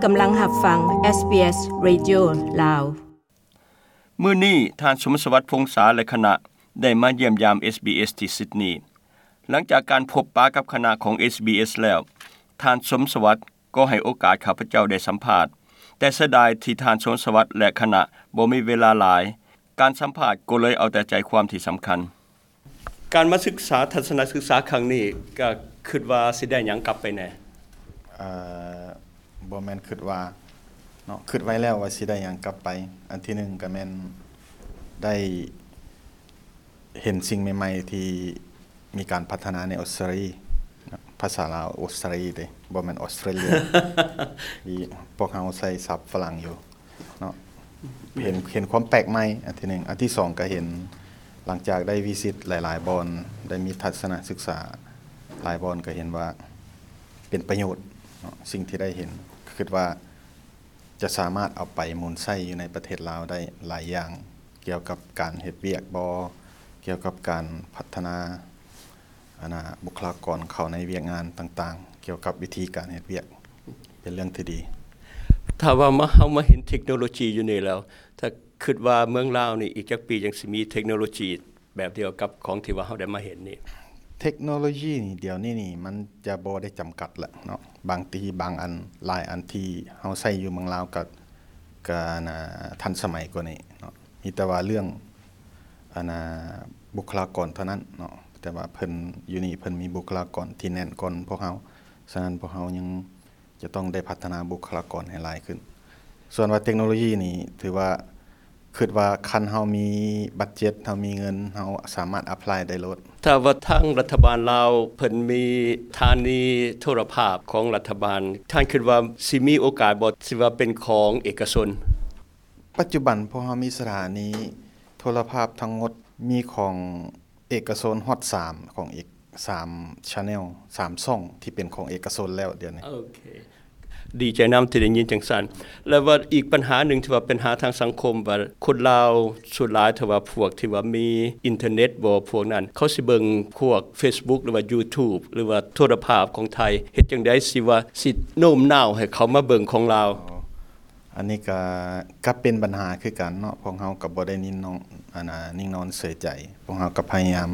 ກຳລັງຮັບຟັງ ເອສບີເອສ ເຣດິໂອ ລາວ. ມື້ນີ້ ທ່ານ ສົມສະຫວັດ ພົງສາ ແລະ ຄະນະ ໄດ້ມາຢ້ຽມຢາມ ເອສບີເອສ ທີ່ຊິດນີ. ຫຼັງຈາກການພົບປະກັບຄະນະຂອງ ເອສບີເອສ ແລ້ວ, ທ່ານ ສົມສະຫວັດ ກໍໃຫ້ໂອກາດຂ້າພະເຈົ້າໄດ້ສຳພາດ, ແຕ່ເສຍດາຍທີ່ທ່ານ ສົມສະຫວັດ ແລະ ຄະນະ ບໍ່ມີເວລາຫຼາຍ. ການສຳພາດກໍເລີຍເອົາແຕ່ໃຈຄວາມທີ່ສຳຄັນ. ການມາສຶກສາທັດສະນະສຶກສາຄັ້ງນີ້ ກໍຄິດວ່າຊິໄດ້ຫຍັງກັບໄປແດ່? ເອີ ບໍ່ແມ່ນຄິດວ່າເນາະ, ຄິດໄວ້ແລ້ວວ່າຊິໄດ້ຫຍັງກັບໄປ. ອັນທີໜຶ່ງກໍແມ່ນໄດ້ເຫັນສິ່ງໃໝ່ໆທີ່ມີການພັດທະນາໃນອົດສະຕຣາລີ, ພາສາລາວ ອົດສະຕຣາລີເດ້, ບໍ່ແມ່ນອົດສະຕຣາເລຍ. ທີ່ພວກເຮົາໃຊ້ສັບຝຣັ່ງຢູ່ເນາະ, ເຫັນ ເຫັນຄວາມແປກໃໝ່ ອັນທີໜຶ່ງ. ອັນທີສອງ ກໍເຫັນ ຫຼັງຈາກໄດ້ວິຊິດຫຼາຍໆບ່ອນ, ໄດ້ມີທັດສະນະສຶກສາຫຼາຍບ່ອນ, ກໍເຫັນວ່າເປັນປະໂຫຍດເນາະ, ສິ່ງທີ່ໄດ້ເຫັນ ຄິດວ່າຈະສາມາດເອົາໄປໝູນໃຊ້ຢູ່ໃນປະເທດລາວໄດ້ຫຼາຍຢ່າງ, ກ່ຽວກັບການເຮັດວຽກບໍ, ກ່ຽວກັບການພັດທະນາ ອັນນ່າ ບຸກຄະລາກອນເຂົ້າໃນວຽກງານຕ່າງໆ, ກ່ຽວກັບວິທີການເຮັດວຽກ ເປັນເລື່ອງທີ່ດີ. ຖ້າວ່າມາ ເຮົາມາເຫັນເທັກໂນໂລຊີຢູ່ນີ້ແລ້ວ, ຖ້າຄິດວ່າເມືອງລາວນີ້ ອີກຈັກປີຈັ່ງຊິມີເທັກໂນໂລຊີແບບດຽວກັບຂອງທີ່ວ່າເຮົາໄດ້ມາເຫັນນີ້? ເທັກໂນໂລຊີນີ້ ດຽວນີ້ນີ້ ມັນຈະບໍ່ໄດ້ຈຳກັດລະເນາະ. ບາງທີບາງອັນ ຫຼາຍອັນທີ່ເຮົາໃຊ້ຢູ່ເມືອງລາວ ກໍ ກໍ ອັນນ່າ ທັນສະໄໝກວ່ານີ້ເນາະ. ມີແຕ່ວ່າເລື່ອງ ອັນນ່າ ບຸກຄະລາກອນເທົ່ານັ້ນເນາະ, ແຕ່ວ່າເພິ່ນ ຢູ່ນີ້ເພິ່ນມີບຸກຄະລາກອນທີ່ແໜ້ນກ່ອນພວກເຮົາ, ສະນັ້ນພວກເຮົາຍັງຈະຕ້ອງໄດ້ພັດທະນາບຸກຄະລາກອນໃຫ້ຫຼາຍຂຶ້ນ. ສ່ວນວ່າເຕັກໂນໂລຢີນີ້ ຖືວ່າ ຄິດວ່າຄັນເຮົາມີບັດເຈັດ ເຮົາມີເງິນ ເຮົາສາມາດ apply ໄດ້ໂລດ. ຖ້າວ່າທາງລັດຖະບານລາວເພິ່ນມີສະຖານີໂທລະພາບຂອງລັດຖະບານ, ທ່ານຄິດວ່າຊິມີໂອກາດບໍ່ ທີ່ວ່າເປັນຂອງເອກະຊົນ? ປັດຈຸບັນພວກເຮົາມີສະຖານີໂທລະພາບທັງໝົດ ມີຂອງເອກະຊົນຮອດສາມ ຂອງເອກ ສາມ channel ສາມຊ່ອງທີ່ເປັນຂອງເອກະຊົນແລ້ວດຽວນີ້. ໂອເຄ ດີໃຈນຳທີ່ໄດ້ຍິນຈັ່ງຊັ້ນ. ແລ້ວວ່າອີກບັນຫາໜຶ່ງທີ່ວ່າເປັນຫາທາງສັງຄົມ ວ່າຄົນລາວສ່ວນຫຼາຍ ຖ້າວ່າພວກທີ່ວ່າມີອິນເຕີເນັດບໍ ພວກນັ້ນ ເຂົາຊິເບິ່ງພວກ Facebook ຫຼືວ່າ YouTube ຫຼືວ່າໂທລະພາບຂອງໄທ, ເຮັດຈັ່ງໃດຊິວ່າ ຊິໂນ້ມນ້າວໃຫ້ເຂົາມາເບິ່ງຂອງລາວ? ອໍ ອັນນີ້ກະ ກະເປັນບັນຫາຄືກັນເນາະ, ພວກເຮົາກະບໍ່ໄດ້ນິ້ນນອນ ອັນນ່າ ນິ່ງນອນເສີຍໃຈ, ພວກເຮົາກະພະຍາຍາມ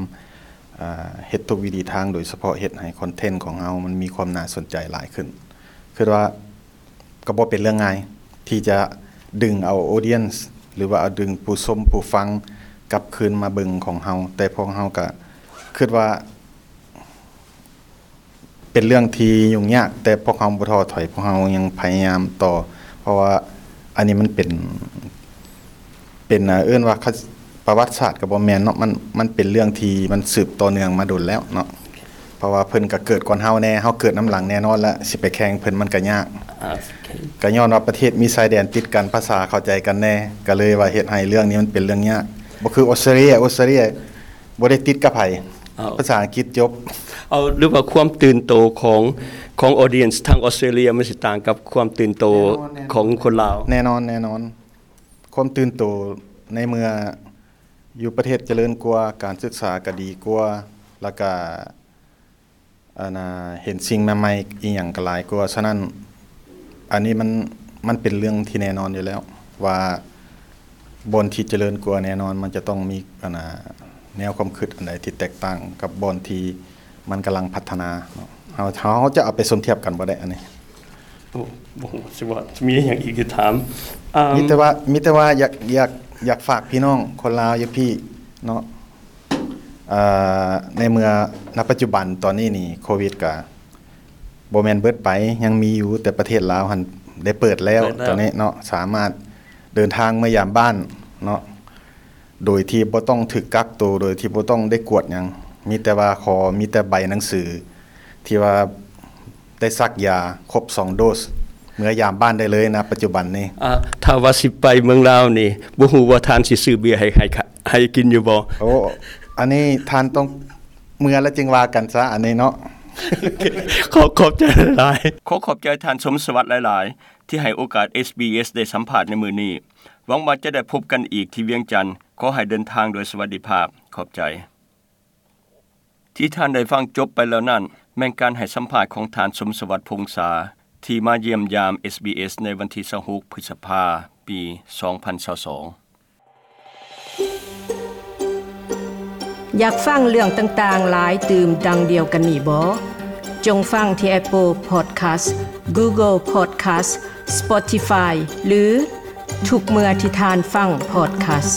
ອ່າ ເຮັດທຸກວິທີທາງ, ໂດຍສະເພາະເຮັດໃຫ້ຄອນເທັນຂອງເຮົາມັນມີຄວາມໜ້າສົນໃຈຫຼາຍຂຶ້ນ. ຄິດວ່າກະບໍ່ເປັນເລື່ອງງ່າຍທີ່ຈະດຶງເອົາ audience ຫຼືວ່າເອົາດຶງຜູ້ຊົມຜູ້ຟັງກັບຄືນມາເບິ່ງຂອງເຮົາ, ແຕ່ພວກເຮົາກະຄິດວ່າ ເປັນເລື່ອງທີ່ຫຍຸ້ງຍາກ, ແຕ່ພວກເຮົາບໍ່ທໍ້ຖອຍ, ພວກເຮົາຍັງພະຍາຍາມຕໍ່, ເພາະວ່າອັນນີ້ມັນເປັນ ເປັນ ເອີ້ນວ່າ ປະຫວັດສາດກະບໍ່ແມ່ນເນາະ, ມັນ ມັນເປັນເລື່ອງທີ່ມັນສືບຕໍ່ເນື່ອງມາດົນແລ້ວເນາະ, ເພາະວ່າເພິ່ນກະເກີດກ່ອນເຮົາແດ່, ເຮົາເກີດນຳຫຼັງແນ່ນອນລະ, ຊິໄປແຂ່ງເພິ່ນມັນກະຍາກ. ກະຍ້ອນວ່າປະເທດມີຊາຍແດນຕິດກັນ, ພາສາເຂົ້າໃຈກັນແດ່, ກະເລີຍວ່າເຮັດໃຫ້ເລື່ອງນີ້ມັນເປັນເລື່ອງຍາກ. ບໍ່ຄືອົດສະຕຣາລີ, ອົດສະຕຣາລີ ບໍ່ໄດ້ຕິດກັບໃຜ, ເອົາ ພາສາອັງກິດຈົບ. ເອົາ ຫຼືວ່າຄວາມຕື່ນໂຕຂອງ ຂອງ audience ທາງອົດສະຕຣາລີ ມັນຊິຕ່າງກັບຄວາມຕື່ນໂຕ ແນ່ນອນ ແນ່ນອນ ຂອງຄົນລາວ? ແນ່ນອນ ແນ່ນອນ. ຄວາມຕື່ນໂຕໃນເມື່ອຢູ່ປະເທດຈະເລີນກວ່າ, ການສຶກສາກະດີກວ່າ, ແລ້ວກະ ອັນນ່າ ເຫັນສິ່ງໃໝ່ໆ ອີ່ຫຍັງກະຫຼາຍກວ່າ. ສະນັ້ນ ອັນນີ້ມັນ ມັນເປັນເລື່ອງທີ່ແນ່ນອນຢູ່ແລ້ວ ວ່າບ່ອນທີ່ຈະເລີນກວ່າແນ່ນອນ ມັນຈະຕ້ອງມີ ອັນນ່າ ແນວຄວາມຄິດອັນໃດທີ່ແຕກຕ່າງກັບບ່ອນທີ່ມັນກຳລັງພັດທະນາເນາະ. ເຮົາ ເຮົາຈະເອົາໄປສົມທຽບກັນບໍ່ໄດ້ອັນນີ້. ໂອ້ ບໍ່ຮູ້ຊິວ່າມີຫຍັງອີກຊິຖາມ. ອ່າ ມີແຕ່ວ່າ ມີແຕ່ວ່າຢາກ ຢາກ ຢາກຝາກພີ່ນ້ອງຄົນລາວຢູ່ພີ້ເນາະ. ເອີ ໃນເມື່ອ ນະປັດຈຸບັນຕອນນີ້ນີ້ ໂຄວິດກະບໍ່ແມ່ນເບິດໄປ, ຍັງມີຢູ່, ແຕ່ປະເທດລາວຫັ້ນໄດ້ເປີດແລ້ວ ເປີດແລ້ວ ຕອນນີ້ເນາະ, ສາມາດເດີນທາງເມືອຢາມບ້ານເນາະ ໂດຍທີ່ບໍ່ຕ້ອງຖືກກັກໂຕ, ໂດຍທີ່ບໍ່ຕ້ອງໄດ້ກວດຫຍັງ, ມີແຕ່ວ່າຂໍ ມີແຕ່ໃບໜັງສືທີ່ວ່າ ໄດ້ສັກຢາຄົບສອງໂດສ ເມືອຢາມບ້ານໄດ້ເລີຍນະປັດຈຸບັນນີ້. ອ່າ ຖ້າວ່າຊິໄປເມືອງລາວນີ້ ບໍ່ຮູ້ວ່າທ່ານຊິຊື້ເບຍໃຫ້ ໃຫ້ ໃຫ້ກິນຢູ່ບໍ່? ໂອ້ ອັນນີ້ທ່ານຕ້ອງເມືອແລ້ວຈຶ່ງວ່າກັນຊະ ອັນນີ້ເນາະ. ຂໍຂອບໃຈຫຼາຍໆ. ຂໍຂອບໃຈທ່ານ ສົມສະຫວັດ ຫຼາຍໆ ທີ່ໃຫ້ໂອກາດ ເອສບີເອສ ໄດ້ສຳພາດໃນມື້ນີ້. ຫວັງວ່າຈະໄດ້ພົບກັນອີກທີ່ວຽງຈັນ. ຂໍໃຫ້ເດີນທາງໂດຍສະຫວັດດີພາບ. ຂອບໃຈ. ທີ່ທ່ານໄດ້ຟັງຈົບໄປແລ້ວນັ້ນ ແມ່ນການໃຫ້ສຳພາດຂອງທ່ານ ສົມສະຫວັດ ພົງສາ, ທີ່ມາຢ້ຽມຢາມ ເອສບີເອສ ໃນວັນທີຊາວຫົກ ພຶດສະພາ ປີສອງພັນຊາວສອງ. ຢາກຟັງເລື່ອງຕ່າງໆຫຼາຍຕື່ມດັ່ງດຽວກັນນີ້ບໍ? ຈົ່ງຟັງທີ່ Apple Podcast, Google Podcast, Spotify ຫຼື ທຸກເມື່ອທີ່ທ່ານຟັງ podcast.